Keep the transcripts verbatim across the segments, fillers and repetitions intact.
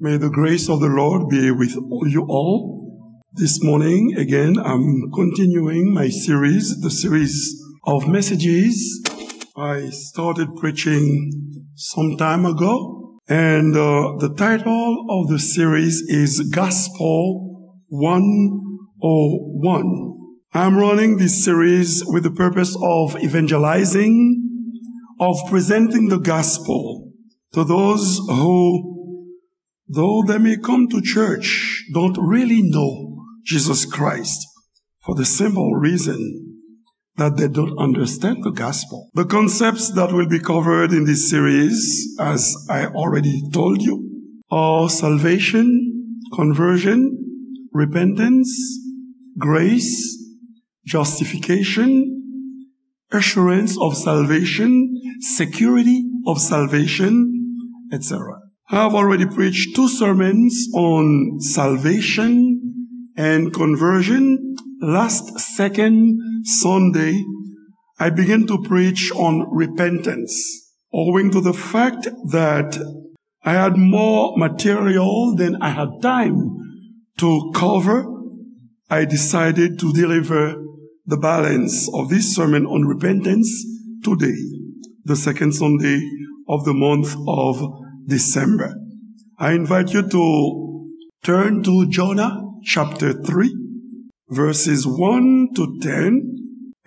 May the grace of the Lord be with you all. This morning, again, I'm continuing my series, the series of messages I started preaching some time ago. And uh, the title of the series is Gospel one oh one. I'm running this series with the purpose of evangelizing, of presenting the gospel to those who, though they may come to church, don't really know Jesus Christ for the simple reason that they don't understand the gospel. The concepts that will be covered in this series, as I already told you, are salvation, conversion, repentance, grace, justification, assurance of salvation, security of salvation, et cetera. I have already preached two sermons on salvation and conversion. Last second Sunday, I began to preach on repentance, owing to the fact that I had more material than I had time to cover. I decided to deliver the balance of this sermon on repentance today, the second Sunday of the month of December. I invite you to turn to Jonah chapter three, verses one to ten,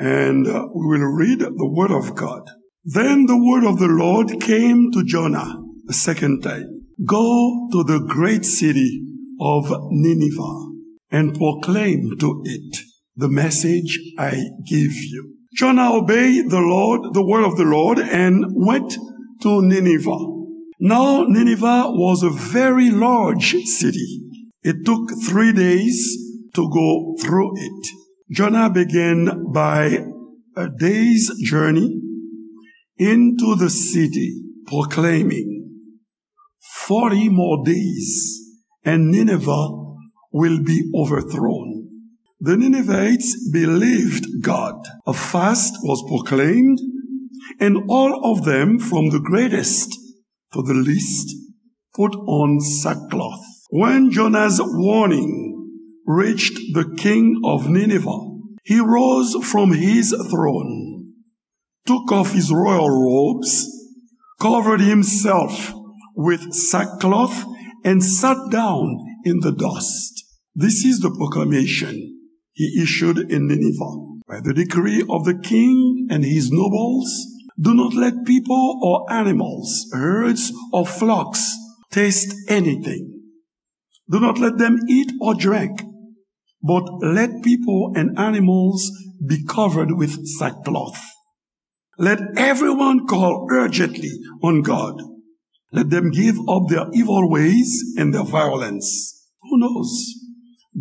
and uh, we will read the word of God. Then the word of the Lord came to Jonah a second time. Go to the great city of Nineveh and proclaim to it the message I give you. Jonah obeyed the Lord, the word of the Lord, and went to Nineveh. Now Nineveh was a very large city. It took three days to go through it. Jonah began by a day's journey into the city, proclaiming, forty more days, and Nineveh will be overthrown. The Ninevites believed God. A fast was proclaimed, and all of them, from the greatest to the least, put on sackcloth. When Jonah's warning reached the king of Nineveh, he rose from his throne, took off his royal robes, covered himself with sackcloth, and sat down in the dust. This is the proclamation he issued in Nineveh. By the decree of the king and his nobles, do not let people or animals, herds or flocks taste anything. Do not let them eat or drink, but let people and animals be covered with sackcloth. Let everyone call urgently on God. Let them give up their evil ways and their violence. Who knows?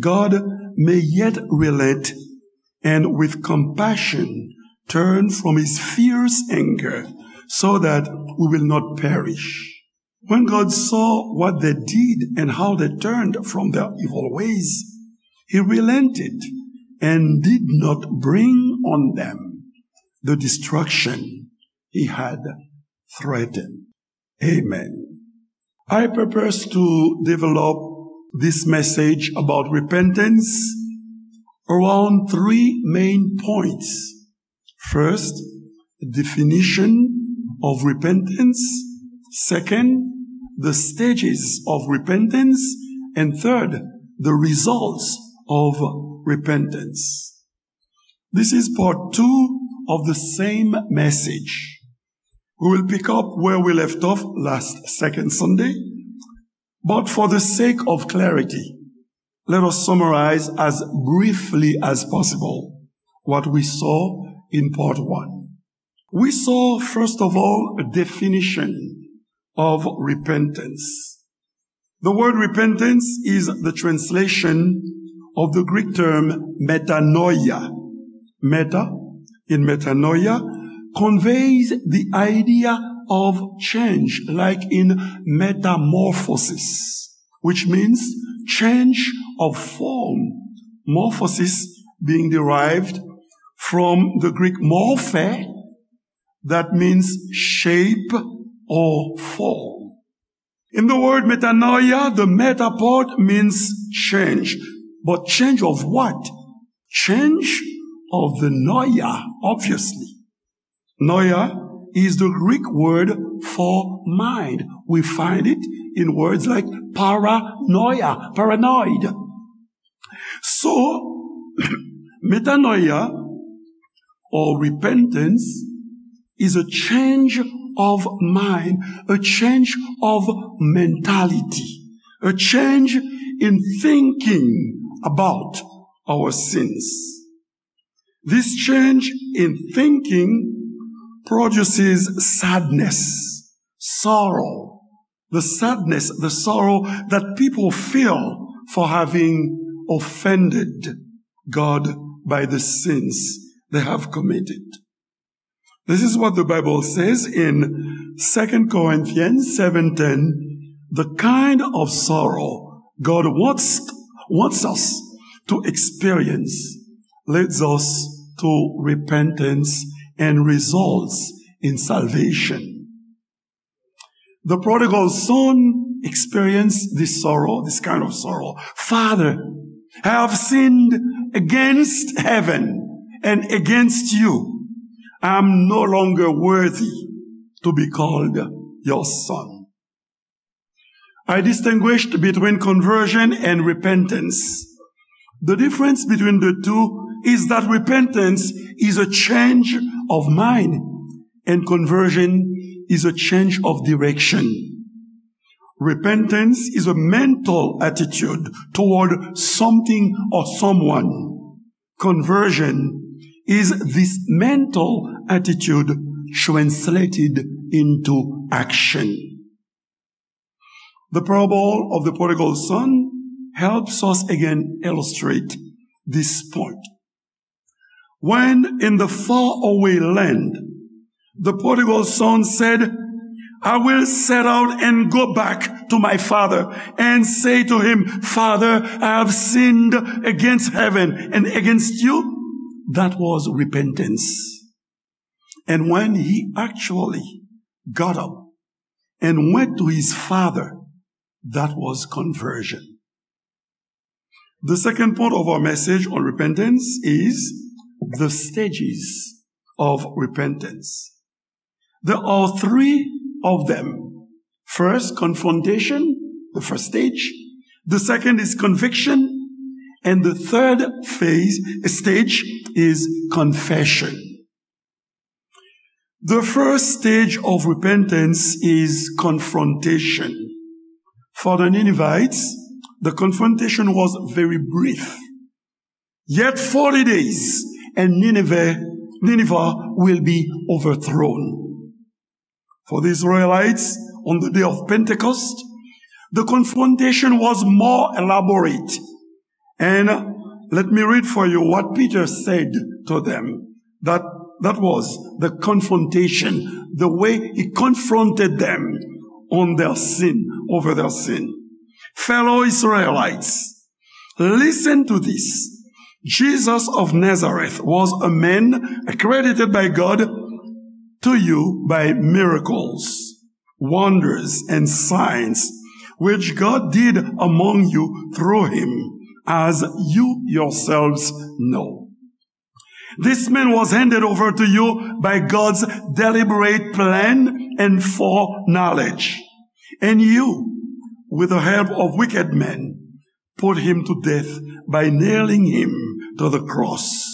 God may yet relent and with compassion turn from his fierce anger so that we will not perish. When God saw what they did and how they turned from their evil ways, he relented and did not bring on them the destruction he had threatened. Amen. I purpose to develop this message about repentance around three main points. First, definition of repentance. Second, the stages of repentance. And third, the results of repentance. This is part two of the same message. We will pick up where we left off last second Sunday, but for the sake of clarity, let us summarize as briefly as possible what we saw in part one. We saw, first of all, a definition of repentance. The word repentance is the translation of the Greek term metanoia. Meta, in metanoia, conveys the idea of change, like in metamorphosis, which means change of form. Morphosis being derived from the Greek morphe, that means shape or form. In the word metanoia, the meta part means change. But change of what? Change of the noia, obviously. Noia is the Greek word for mind. We find it in words like paranoia, paranoid. So, metanoia or repentance is a change of mind, a change of mentality, a change in thinking about our sins. This change in thinking produces sadness, sorrow, the sadness, the sorrow that people feel for having offended God by the sins they have committed. This is what the Bible says in Second Corinthians seven ten. The kind of sorrow God wants, wants us to experience leads us to repentance and results in salvation. The prodigal son experienced this sorrow, this kind of sorrow. "Father, I have sinned against heaven and against you. I am no longer worthy to be called your son." I distinguished between conversion and repentance. The difference between the two is that repentance is a change of mind and conversion is a change of direction. Repentance is a mental attitude toward something or someone. Conversion is this mental attitude translated into action. The parable of the prodigal son helps us again illustrate this point. When in the faraway land, the prodigal son said, "I will set out and go back to my father and say to him, 'Father, I have sinned against heaven and against you.'" That was repentance. And when he actually got up and went to his father, that was conversion. The second point of our message on repentance is the stages of repentance. There are three of them. First, confrontation, the first stage. The second is conviction. And the third phase, stage, is confession. The first stage of repentance is confrontation. For the Ninevites, the confrontation was very brief. "Yet forty days, and Nineveh, Nineveh will be overthrown." For the Israelites, on the day of Pentecost, the confrontation was more elaborate. And let me read for you what Peter said to them. That, that was the confrontation, the way he confronted them on their sin, over their sin. "Fellow Israelites, listen to this. Jesus of Nazareth was a man accredited by God to you by miracles, wonders, and signs, which God did among you through him, as you yourselves know. This man was handed over to you by God's deliberate plan and foreknowledge. And you, with the help of wicked men, put him to death by nailing him to the cross.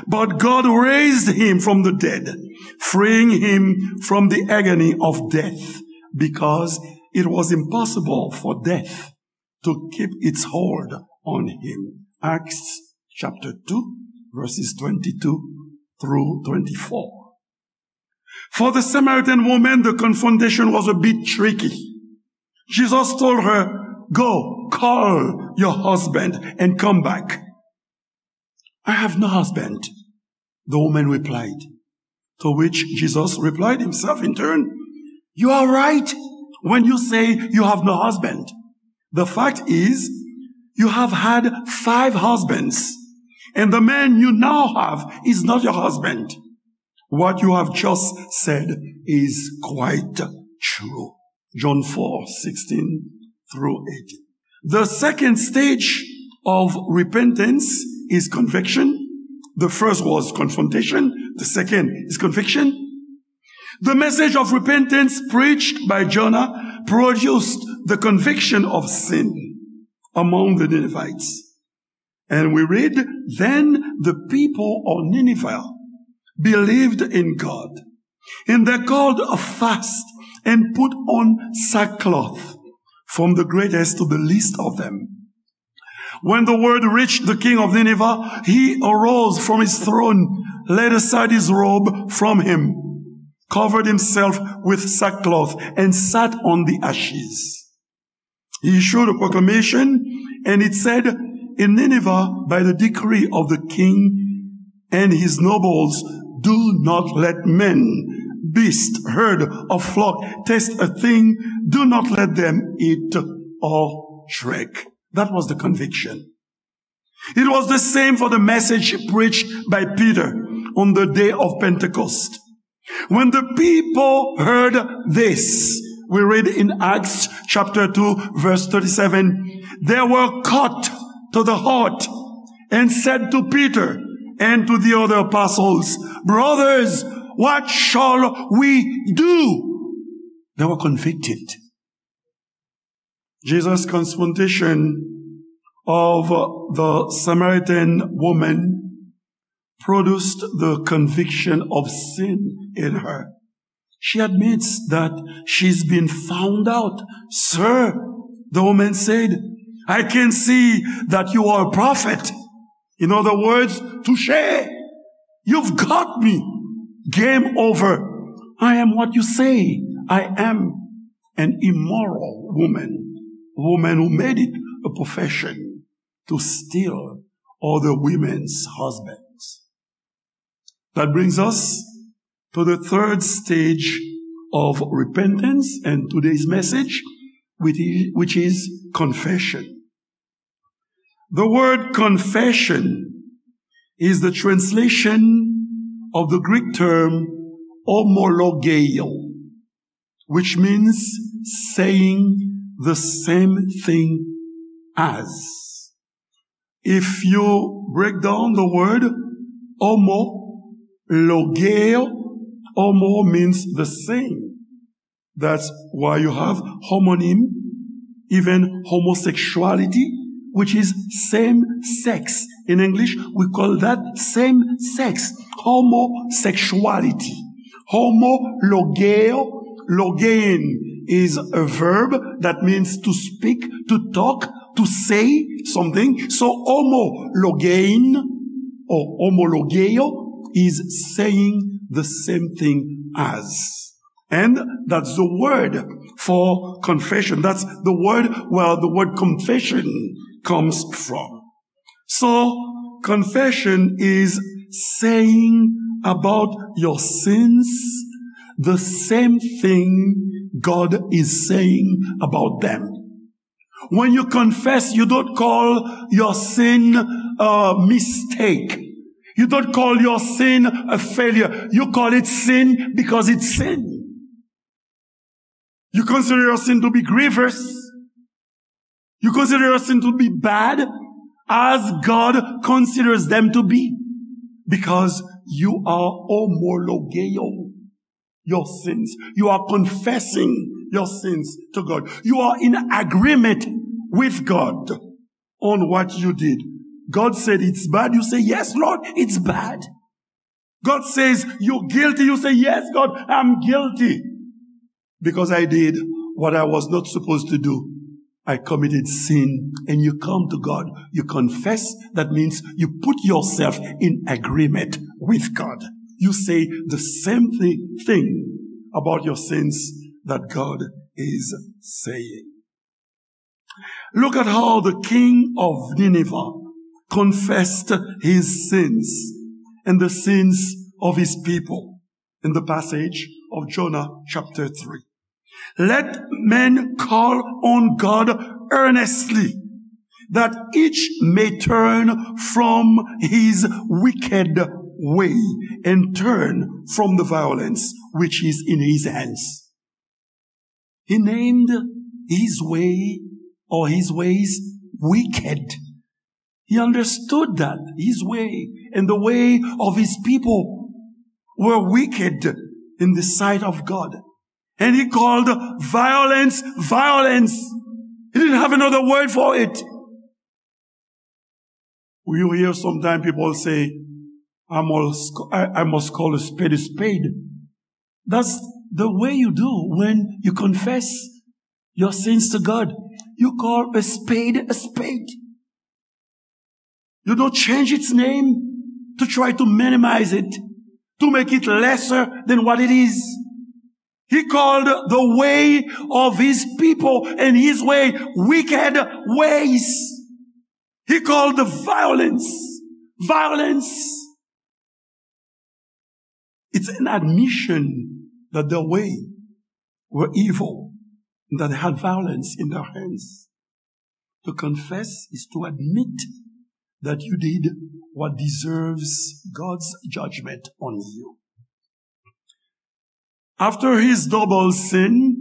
But God raised him from the dead, freeing him from the agony of death, because it was impossible for death to keep its hold on him." Acts chapter two, verses twenty-two through twenty-four. For the Samaritan woman, the confrontation was a bit tricky. Jesus told her, "Go, call your husband and come back." "I have no husband," the woman replied. To which Jesus replied himself in turn, "You are right when you say you have no husband. The fact is, you have had five husbands, and the man you now have is not your husband. What you have just said is quite true." John four sixteen through eighteen. The second stage of repentance is conviction. The first was confrontation. The second is conviction. The message of repentance preached by Jonah produced the conviction of sin among the Ninevites. And we read, "Then the people of Nineveh believed in God, and they called a fast and put on sackcloth, from the greatest to the least of them." When the word reached the king of Nineveh, he arose from his throne, laid aside his robe from him, covered himself with sackcloth, and sat on the ashes. He issued a proclamation, and it said, "In Nineveh, by the decree of the king and his nobles, do not let men, beast, herd, or flock taste a thing. Do not let them eat or drink." That was the conviction. It was the same for the message preached by Peter on the day of Pentecost. When the people heard this, we read in Acts chapter two, verse thirty-seven, they were cut to the heart and said to Peter and to the other apostles, "Brothers, what shall we do?" They were convicted. Jesus' confrontation of the Samaritan woman produced the conviction of sin in her. She admits that she's been found out. "Sir," the woman said, "I can see that you are a prophet." In other words, "Touché, you've got me. Game over. I am what you say I am, an immoral woman, woman who made it a profession to steal other women's husbands." That brings us to the third stage of repentance and today's message, which is, which is confession. The word confession is the translation of the Greek term homologeo, which means saying the same thing as. If you break down the word homo, logeo, homo means the same. That's why you have homonym, even homosexuality, which is same sex. In English, we call that same sex, homosexuality. Homo logeo, logein is a verb that means to speak, to talk, to say something. So homo logein or homologeo is saying the same thing as. And that's the word for confession. That's the word where the word confession comes from. So, confession is saying about your sins the same thing God is saying about them. When you confess, you don't call your sin a mistake. You don't call your sin a failure. You call it sin because it's sin. You consider your sin to be grievous. You consider your sin to be bad as God considers them to be, because you are homologeo your sins. You are confessing your sins to God. You are in agreement with God on what you did. God said it's bad. You say, "Yes, Lord, it's bad." God says, "You're guilty." You say, "Yes, God, I'm guilty because I did what I was not supposed to do. I committed sin." And you come to God, you confess. That means you put yourself in agreement with God. You say the same thing, thing about your sins that God is saying. Look at how the king of Nineveh confessed his sins and the sins of his people in the passage of Jonah chapter three. "Let men call on God earnestly, that each may turn from his wicked way and turn from the violence which is in his hands." He named his way or his ways wicked. He understood that his way and the way of his people were wicked in the sight of God. And he called violence, violence. He didn't have another word for it. You hear sometimes people say, I must, I, I must call a spade a spade. That's the way you do when you confess your sins to God. You call a spade a spade. You don't change its name to try to minimize it, to make it lesser than what it is. He called the way of his people and his way wicked ways. He called the violence violence. It's an admission that their way were evil, that they had violence in their hands. To confess is to admit that you did what deserves God's judgment on you. After his double sin,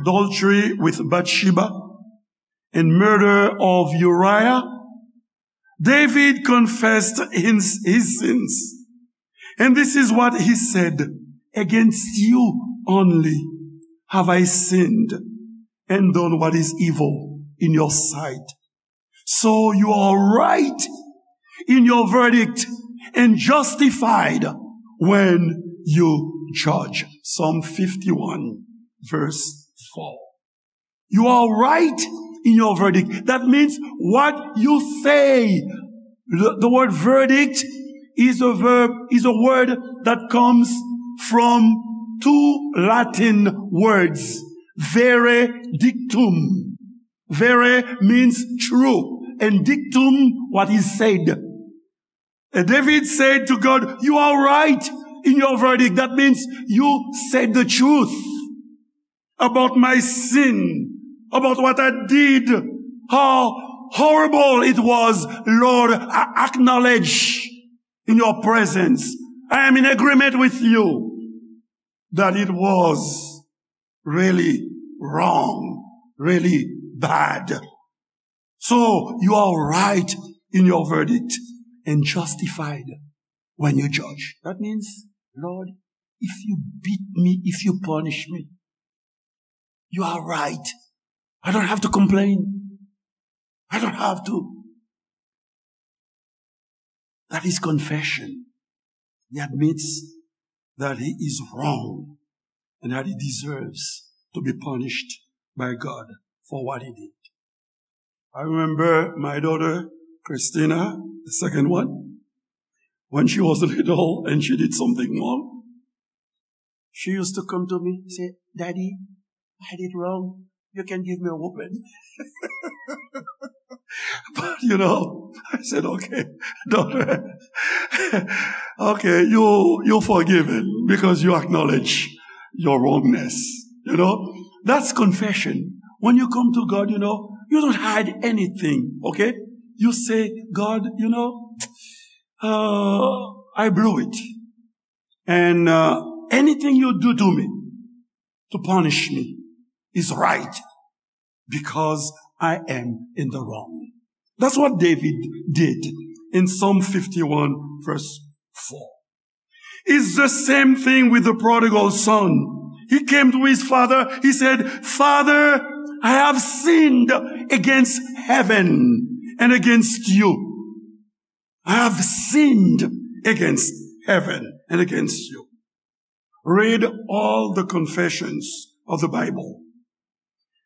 adultery with Bathsheba and murder of Uriah, David confessed his, his sins. And this is what he said, Against you only have I sinned and done what is evil in your sight. So you are right in your verdict and justified when you judge. Psalm fifty-one, verse four. You are right in your verdict. That means what you say. The, the word verdict is a verb, is a word that comes from two Latin words, vere dictum. Vere means true, and dictum, what is said. And David said to God, You are right in your verdict. That means you said the truth about my sin, about what I did, how horrible it was. Lord, I acknowledge in your presence. I am in agreement with you that it was really wrong, really bad. So you are right in your verdict and justified when you judge. That means, Lord, if you beat me, if you punish me, you are right. I don't have to complain. I don't have to. That is confession. He admits that he is wrong and that he deserves to be punished by God for what he did. I remember my daughter, Christina, the second one, when she was little and she did something wrong, she used to come to me, say, Daddy, I did wrong. You can give me a whooping. But you know, I said, okay, daughter, okay, you, you're forgiven because you acknowledge your wrongness. You know, that's confession. When you come to God, you know, you don't hide anything, okay? You say, God, you know, uh, I blew it. And uh, anything you do to me to punish me is right because I am in the wrong. That's what David did in Psalm fifty-one, verse four. It's the same thing with the prodigal son. He came to his father, he said, Father, I have sinned against heaven and against you. I have sinned against heaven and against you. Read all the confessions of the Bible.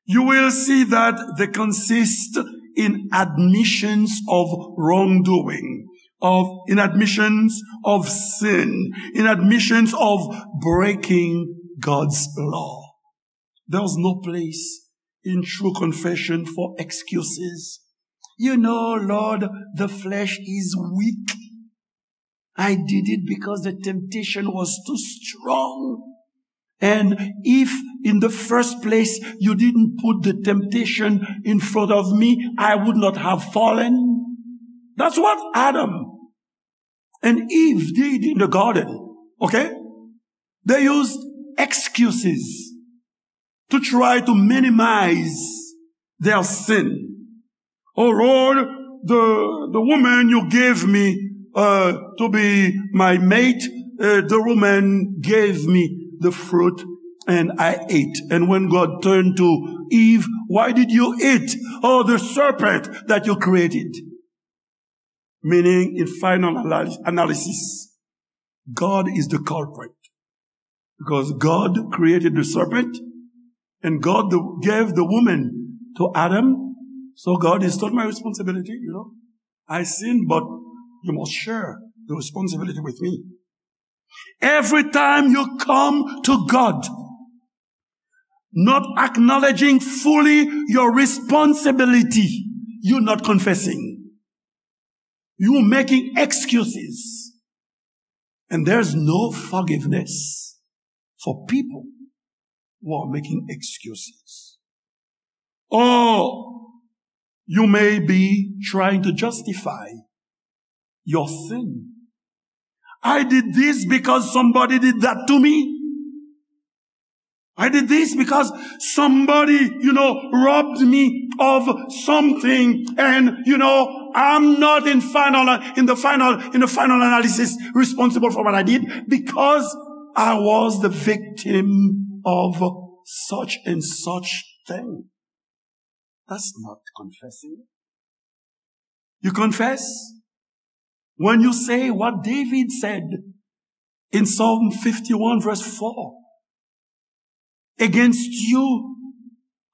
You will see that they consist in admissions of wrongdoing, of in admissions of sin, in admissions of breaking God's law. There's no place in true confession for excuses. You know, Lord, the flesh is weak. I did it because the temptation was too strong. And if in the first place you didn't put the temptation in front of me, I would not have fallen. That's what Adam and Eve did in the garden. Okay? They used excuses to try to minimize their sin. Oh Lord, the, the woman you gave me uh, to be my mate, uh, the woman gave me the fruit and I ate. And when God turned to Eve, "Why did you eat? Oh, the serpent that you created." Meaning, in final analy- analysis, God is the culprit. Because God created the serpent, and God the, gave the woman to Adam. So God is not my responsibility, you know. I sinned, but you must share the responsibility with me. Every time you come to God, not acknowledging fully your responsibility, you're not confessing. You're making excuses. And there's no forgiveness for people who are making excuses. Or you may be trying to justify your sin. "I did this because somebody did that to me. I did this because somebody, you know, robbed me of something. And, you know, I'm not in final, in the final, in the final analysis responsible for what I did because I was the victim of such and such thing." That's not confessing. You confess when you say what David said in Psalm fifty-one, verse four. "Against you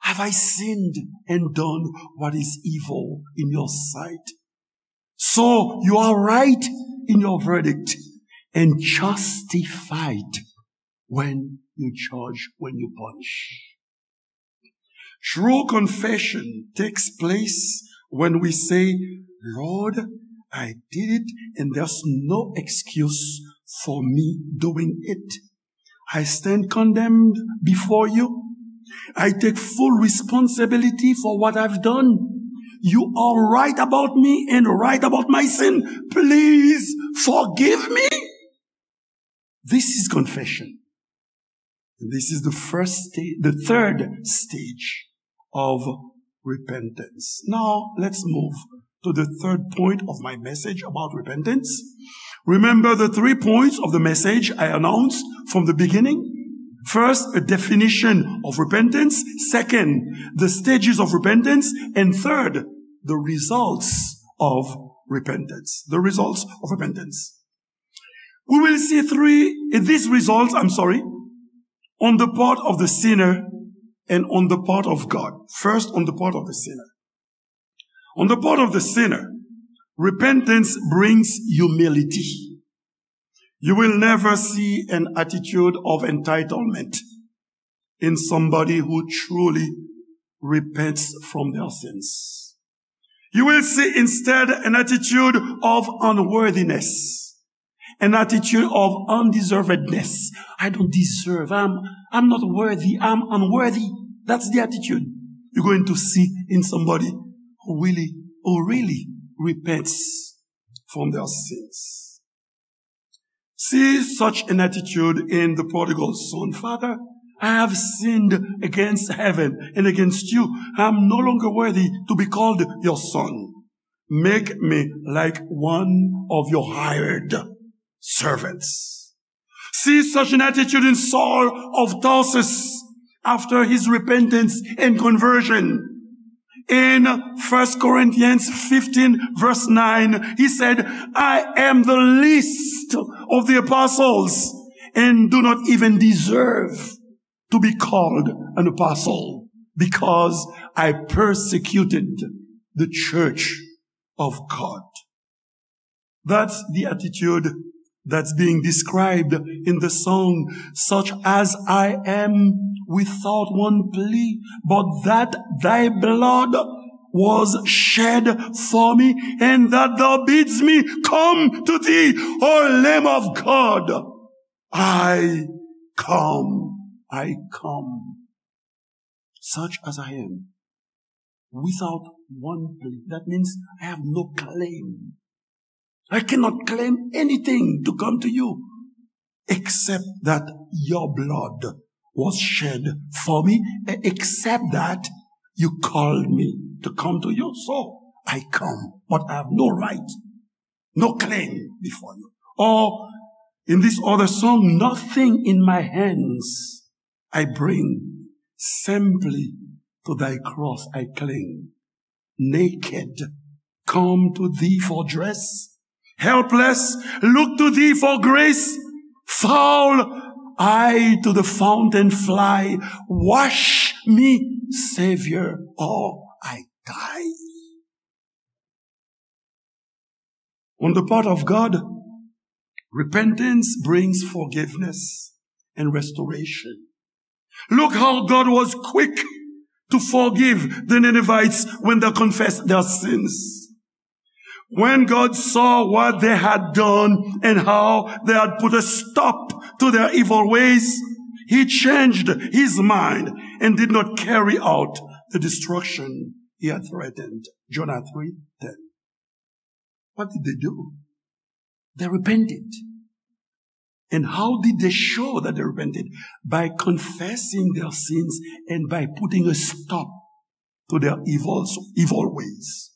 have I sinned and done what is evil in your sight." So you are right in your verdict and justified when you judge, when you punish. True confession takes place when we say, "Lord, I did it, and there's no excuse for me doing it. I stand condemned before you. I take full responsibility for what I've done. You are right about me and right about my sin. Please forgive me." This is confession. And this is the first sta- the third stage of repentance. Now, let's move to the third point of my message about repentance. Remember the three points of the message I announced from the beginning. First, a definition of repentance. Second, the stages of repentance. And third, the results of repentance. The results of repentance. We will see three, these results, I'm sorry, on the part of the sinner and on the part of God. First, on the part of the sinner. On the part of the sinner, repentance brings humility. You will never see an attitude of entitlement in somebody who truly repents from their sins. You will see instead an attitude of unworthiness, an attitude of undeservedness. "I don't deserve, I'm, I'm not worthy, I'm unworthy." That's the attitude you're going to see in somebody who really, who really repents from their sins. See such an attitude in the prodigal son. "Father, I have sinned against heaven and against you. I am no longer worthy to be called your son. Make me like one of your hired servants." See such an attitude in Saul of Tarsus after his repentance and conversion. In First Corinthians fifteen, verse nine, he said, "I am the least of the apostles and do not even deserve to be called an apostle because I persecuted the church of God." That's the attitude that's being described in the song, "Such as I am, without one plea, but that thy blood was shed for me, and that thou bidst me come to thee, O Lamb of God. I come, I come." Such as I am, without one plea. That means I have no claim. I cannot claim anything to come to you except that your blood was shed for me, e- except that you called me to come to you. So I come, but I have no right, no claim before you. Or in this other song, nothing in my hands I bring, simply to thy cross I cling. Naked, come to thee for dress. Helpless, look to thee for grace. Foul, I to the fountain fly. Wash me, Savior, or I die. On the part of God, repentance brings forgiveness and restoration. Look how God was quick to forgive the Ninevites when they confessed their sins. When God saw what they had done and how they had put a stop to their evil ways, he changed his mind and did not carry out the destruction he had threatened. Jonah three ten. What did they do? They repented. And how did they show that they repented? By confessing their sins and by putting a stop to their evil, evil ways.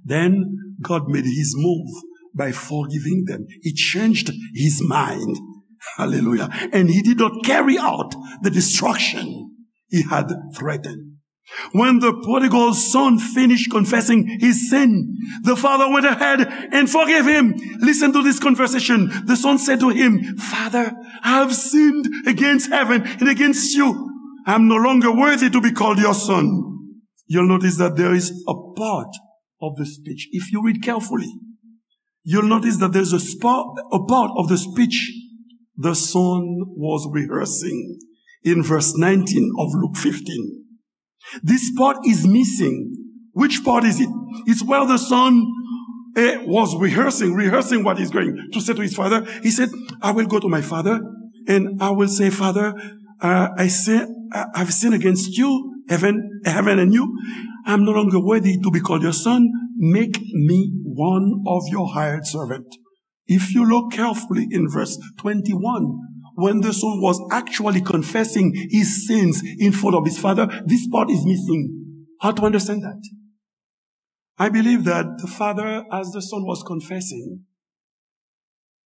Then God made his move by forgiving them. He changed his mind. Hallelujah. And he did not carry out the destruction he had threatened. When the prodigal son finished confessing his sin, the father went ahead and forgave him. Listen to this conversation. The son said to him, "Father, I have sinned against heaven and against you. I'm no longer worthy to be called your son." You'll notice that there is a part of the speech. If you read carefully, you'll notice that there's a, spot, a part of the speech the son was rehearsing in verse nineteen of Luke fifteen. This part is missing. Which part is it? It's where the son eh, was rehearsing, rehearsing what he's going to say to his father. He said, "I will go to my father and I will say, 'Father, uh, I sin, I- I've sinned against you, heaven, heaven and you. I'm no longer worthy to be called your son. Make me one of your hired servant.'" If you look carefully in verse twenty-one, when the son was actually confessing his sins in front of his father, this part is missing. How to understand that? I believe that the father, as the son was confessing,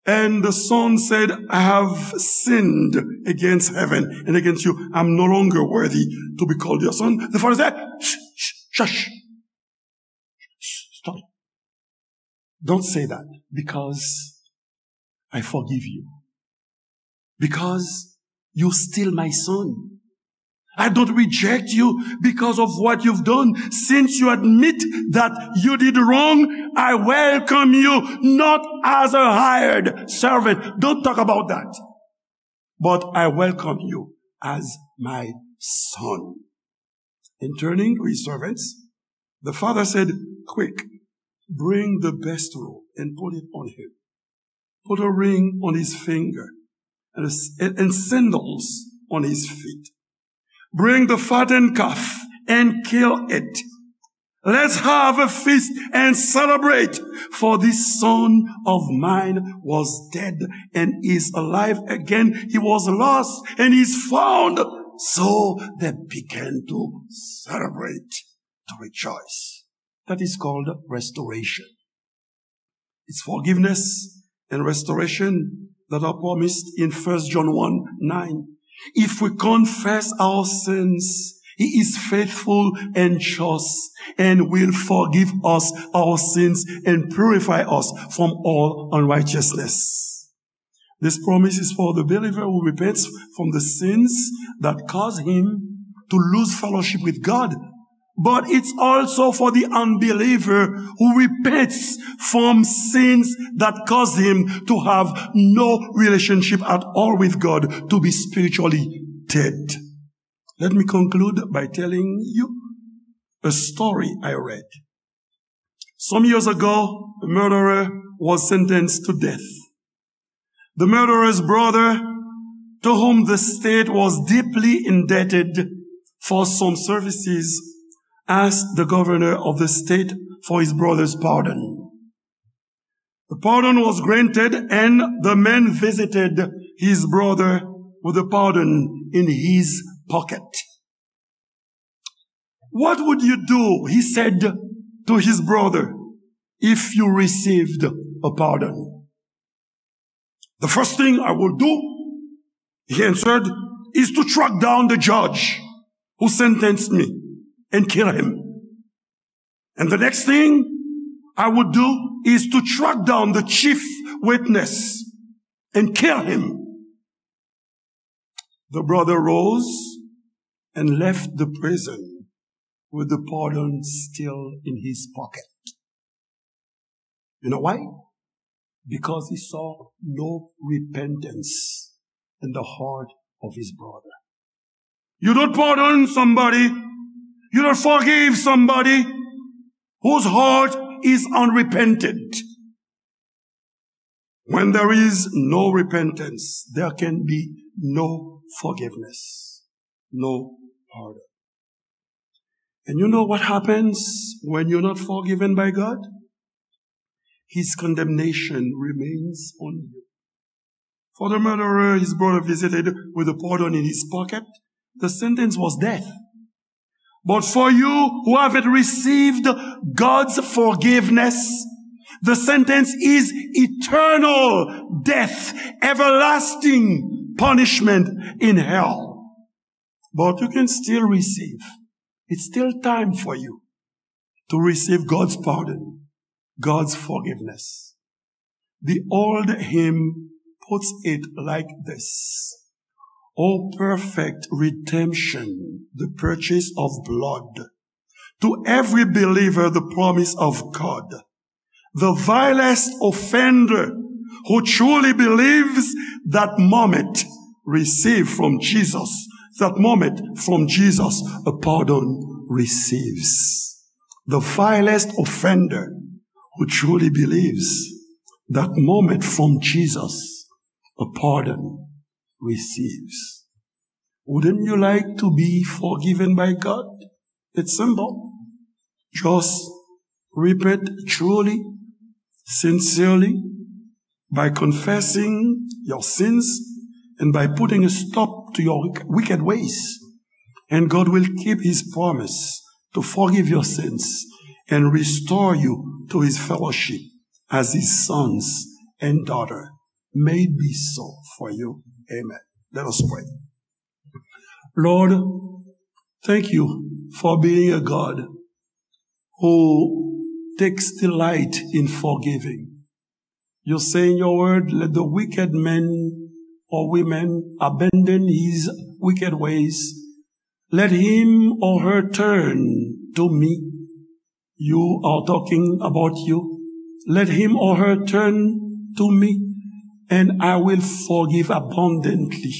and the son said, "I have sinned against heaven and against you. I'm no longer worthy to be called your son." The father said, "Shh, shh, shush. Stop. Don't say that, because I forgive you. Because you're still my son. I don't reject you because of what you've done. Since you admit that you did wrong, I welcome you not as a hired servant. Don't talk about that. But I welcome you as my son." And turning to his servants, the father said, "Quick, bring the best robe and put it on him. Put a ring on his finger and, and, and sandals on his feet. Bring the fattened calf and kill it. Let's have a feast and celebrate. For this son of mine was dead and is alive again. He was lost and is found." So they began to celebrate, to rejoice. That is called restoration. It's forgiveness and restoration that are promised in First John one nine. If we confess our sins, he is faithful and just and will forgive us our sins and purify us from all unrighteousness. This promise is for the believer who repents from the sins that cause him to lose fellowship with God. But it's also for the unbeliever who repents from sins that cause him to have no relationship at all with God, to be spiritually dead. Let me conclude by telling you a story I read. Some years ago, a murderer was sentenced to death. The murderer's brother, to whom the state was deeply indebted for some services, asked the governor of the state for his brother's pardon. The pardon was granted, and the man visited his brother with a pardon in his pocket. "What would you do," he said to his brother, "if you received a pardon?" "The first thing I will do," he answered, "is to track down the judge who sentenced me and kill him. And the next thing I would do is to track down the chief witness and kill him." The brother rose and left the prison with the pardon still in his pocket. You know why? Because he saw no repentance in the heart of his brother. You don't pardon somebody, you don't forgive somebody whose heart is unrepentant. When there is no repentance, there can be no forgiveness, no pardon. And you know what happens when you're not forgiven by God? His condemnation remains on you. For the murderer, his brother visited with a pardon in his pocket. The sentence was death. But for you who haven't received God's forgiveness, the sentence is eternal death, everlasting punishment in hell. But you can still receive. It's still time for you to receive God's pardon, God's forgiveness. The old hymn puts it like this: "O perfect redemption, the purchase of blood, to every believer the promise of God. The vilest offender who truly believes that moment receive from Jesus, that moment from Jesus a pardon receives." The vilest offender who truly believes that moment from Jesus a pardon receives. Wouldn't you like to be forgiven by God? It's simple. Just repent truly, sincerely, by confessing your sins and by putting a stop to your wick-, wicked ways. And God will keep his promise to forgive your sins and restore you to his fellowship as his sons and daughter. May it be so for you. Amen. Let us pray. Lord, thank you for being a God who takes delight in forgiving. You say in your word, "Let the wicked man or woman abandon his wicked ways. Let him or her turn to me." You are talking about you. "Let him or her turn to me, and I will forgive abundantly."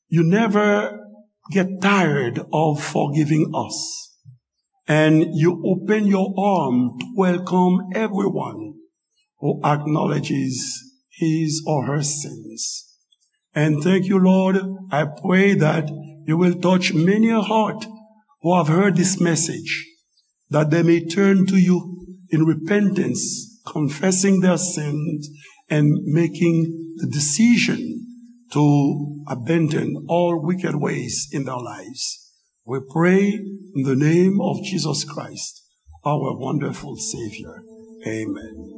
You never get tired of forgiving us. And you open your arm to welcome everyone who acknowledges his or her sins. And thank you, Lord. I pray that you will touch many a heart who have heard this message, that they may turn to you in repentance, confessing their sins and making the decision to abandon all wicked ways in their lives. We pray in the name of Jesus Christ, our wonderful Savior. Amen.